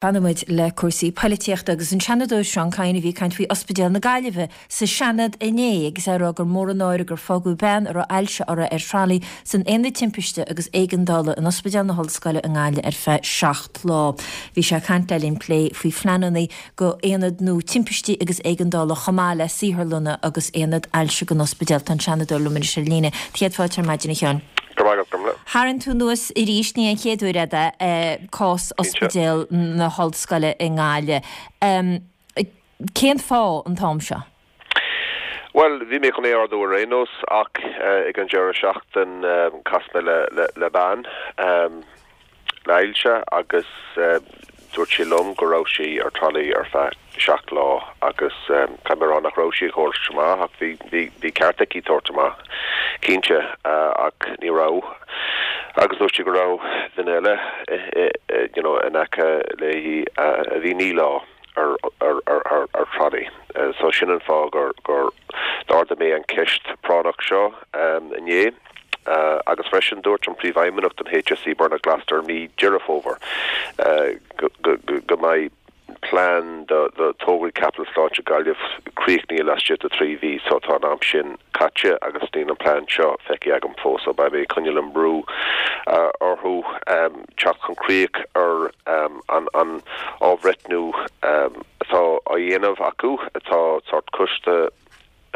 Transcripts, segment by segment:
Fanfaidh muid le cúrsaí poilitíochta agus an Seanadóir Seán Kyne a bhí ag caint faoi Ospidéal na Gaillimhe sa Seanad inné agus é ag rá gur mór an náire gur fágadh bean a raibh ailse uirthi ar tralaí san Aonad Timpiste agus Éigeandála in Ospidéal na hOllscoile i nGaillimh ar feadh 7 lá. Bhí sé ag caint le linn plé faoi phleananna go aonad nua timpistí agus éigeandála chomh maith le saotharlanna agus aonad ailse don ospidéal. Tá an Seanadóir liom anois ar líne. Céad fáilte ar maidin a Sheáin. Go raibh maith agat, Gormfhlaith. Tharraing tú anuas arís, ní an chéad uair é, cás Ospidéal na hOllscoile i nGaillimh. Cén fáth an t-am seo? Bhuel, bhí mé chun é a ardú ar aon nós ach ag an deireadh seachtain chas mé le bean le hailse agus dúirt sí liom go raibh sí ar tralaí ar feadh 7 lá agus caithfidh mé a rá nach raibh sí ag tabhairt amach ach bhí bhí bhí ceart aici tabhairt amach cinnte ach ní raibh agus dúirt sí go raibh duine eile you know in aice léi a bhí 9 lá ar ar ar ar ar tralaí. So sin an fáth gur gur d'ardaigh mé an ceist práinneach seo inné. Agus freisin dúirt an Príomhfheidhmeannach don HSE Bernard Gloster mí Deireadh Fómhair go go mbeidh plean do do tograí caipitil sláinte Gaillimh críochnaithe laistigh de 3 mhí so tá an am sin caite agus níl an plean seo feicthe agam fós so beidh mé ag coinneáil an brú orthu teacht chun críoch ar an an athbhreithniú atá á dhéanamh acu atá sórt coiste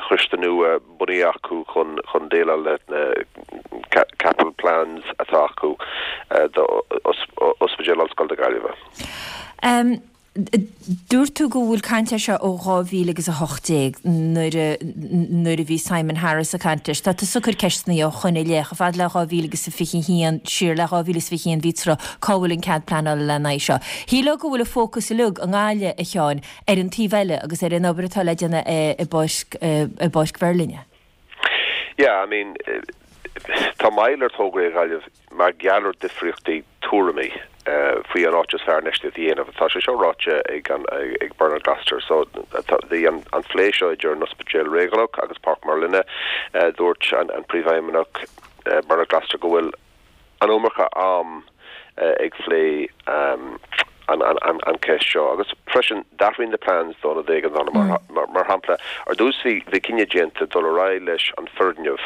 choiste nua bunaithe acu chun chun déileáil le na capital plans atá acu do Ospidéal Ollscoile na Gaillimhe. Dúirt tú go bhfuil caint air seo ó 2018 nuair a nuair a bhí Simon Harris ag caint leis. Tá tusa ag cur ceisteanna ó shoin i leith, chomh fada le 2021, siar le 2021 bhí tráth, cá bhfuil an cead pleanála lena aghaidh seo? Shílfeá go bhfuil an fócas uilig i nGaillimh, a Sheáin, ar an taobh eile agus ar an obair atá le déanamh i bPáirc i bPáirc Mheirlinne. Yeah, I mean, tá moill ar tograí i Gaillimh mar gheall ar difríochtaí tuairimí faoi an áit is fearr infheistíocht a dhéanamh. Tá sé seo ráite ag an ag Bernard Gloster. So bhí an an phlé seo idir an Ospidéal Réigiúnach agus Páirc Merlinne. Dúirt an an Príomhfheidhmeannach Bernard Gloster go bhfuil an iomarca am ag phlé an cheist seo agus freisin d'athraigh na plans d'ionad éigeandála mar shampla ar dtús bhí bhí cinneadh déanta dul ar aghaidh leis an foirgneamh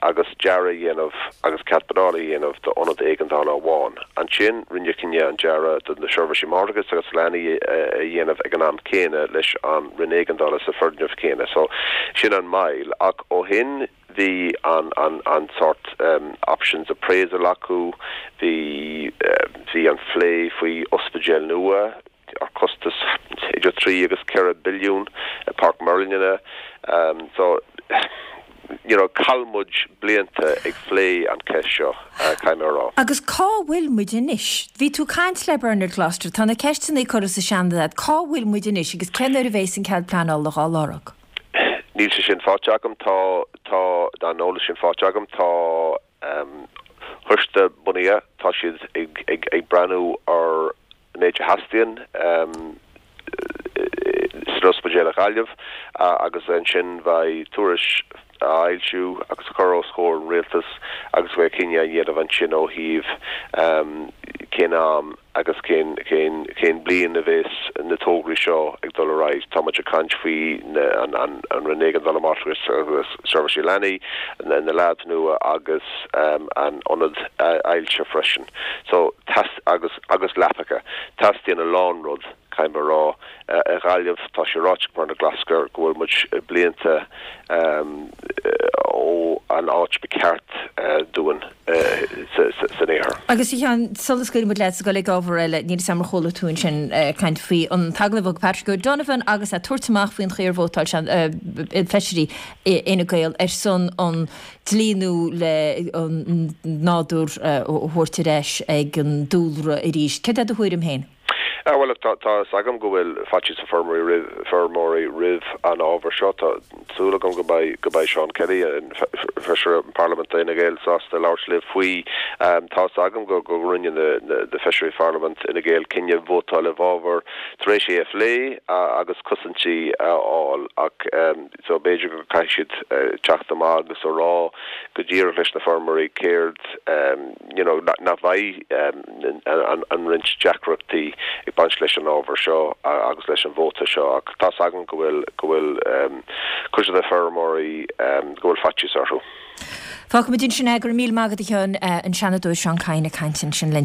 agus dearadh a dhéanamh agus cead pleanála a dhéanamh d'ionad éigeandála amháin. Ansin rinneadh cinneadh an dearadh do na seirbhísí máithreachais agus leanaí a dhéanamh ag an am céanna leis an Roinn Éigeandála sa foirgneamh céanna. So sin an moill ach ó shin Bhí an an an sórt options appraisal acu, bhí bhí an phlé faoi ospidéal nua ar costas idir 3 agus 4 billiún i Páirc Merlinne. So you know chaill muid blianta ag phlé an cheist seo, caithfidh mé a rá. Agus cá bhfuil muid anois? Bhí tú ag caint le Bernard Gloster, tá na ceisteanna curtha sa Seanad agat, cá bhfuil muid anois agus cén uair a bheas an cead pleanála dhá lorg? Níl sé sin faighte agam. Tá, tá an eolas sin faighte agam. Tá coiste bunaithe, tá siad ag, ag, ag breathnú ar an méid a theastaíonn san ospidéal i Gaillimh agus ansin beidh tuairisc á fhoilsiú agus a chur os comhair an rialtais agus beidh cinneadh á dhéanamh ansin ó thaobh cén am agus cén, cén, cén bliain a bheas na tograí seo ag dul ar aghaidh. Tá muid ag caint faoi na, an, an, an Roinn Éigeandála Máithreachais agus Seirbhísí Leanaí, na, na labs nua agus an ionad ailse freisin. So, teas, agus, agus leapacha. Teastaíonn a lán rud, caithfidh mé a rá. I nGaillimh, tá sé ráite ag Bernard Gloster go bhfuil muid blianta ó an áit ba cheart dúinn san iarthar. Agus a Sheáin, sula scaoilfidh muid leat is ag dul ag ábhar eile, níl 'fhios a'm ar chuala tú ansin caint faoi an t-agallamh a thug Patrick O'Donovan agus é ag tabhairt amach faoin chaoi ar vótáil sé, feisirí Fhine Gael ar son an dlí nua le an nádúr a thabhairt ar ais ag an dúlra arís. Céard é do thuairim féin? Bhuel, tá fhios agam go bhfuil faitíos ar feirmeoirí feirmeoirí roimh an ábhar seo. Tá súil agam go mbeidh go mbeidh Seán Kelly, an Feisire Parlaiminte d'Fhine Gael, sásta labhairt libh faoi. Tá fhios agam go go rinne na na Feisirí Pharlaimint Fhine Gael cinneadh vótáil i bhfabhar tar éis é a phlé agus cosaintí a fháil ach so b'fhéidir go caithfidh siad teacht amach agus a rá go díreach leis na feirmeoirí céard you know nach mbeidh an roinnt deacrachtaí ag baint leis an ábhar seo agus leis an vóta seo ach tá's agam go bhfuil go bhfuil cuid de na feirmeoirí go bhfuil faitíos orthu. Fágfaimid ansin é, go raibh míle maith agat a Sheáin, an Seanadóir Seán Kyne ag caint ansin linn.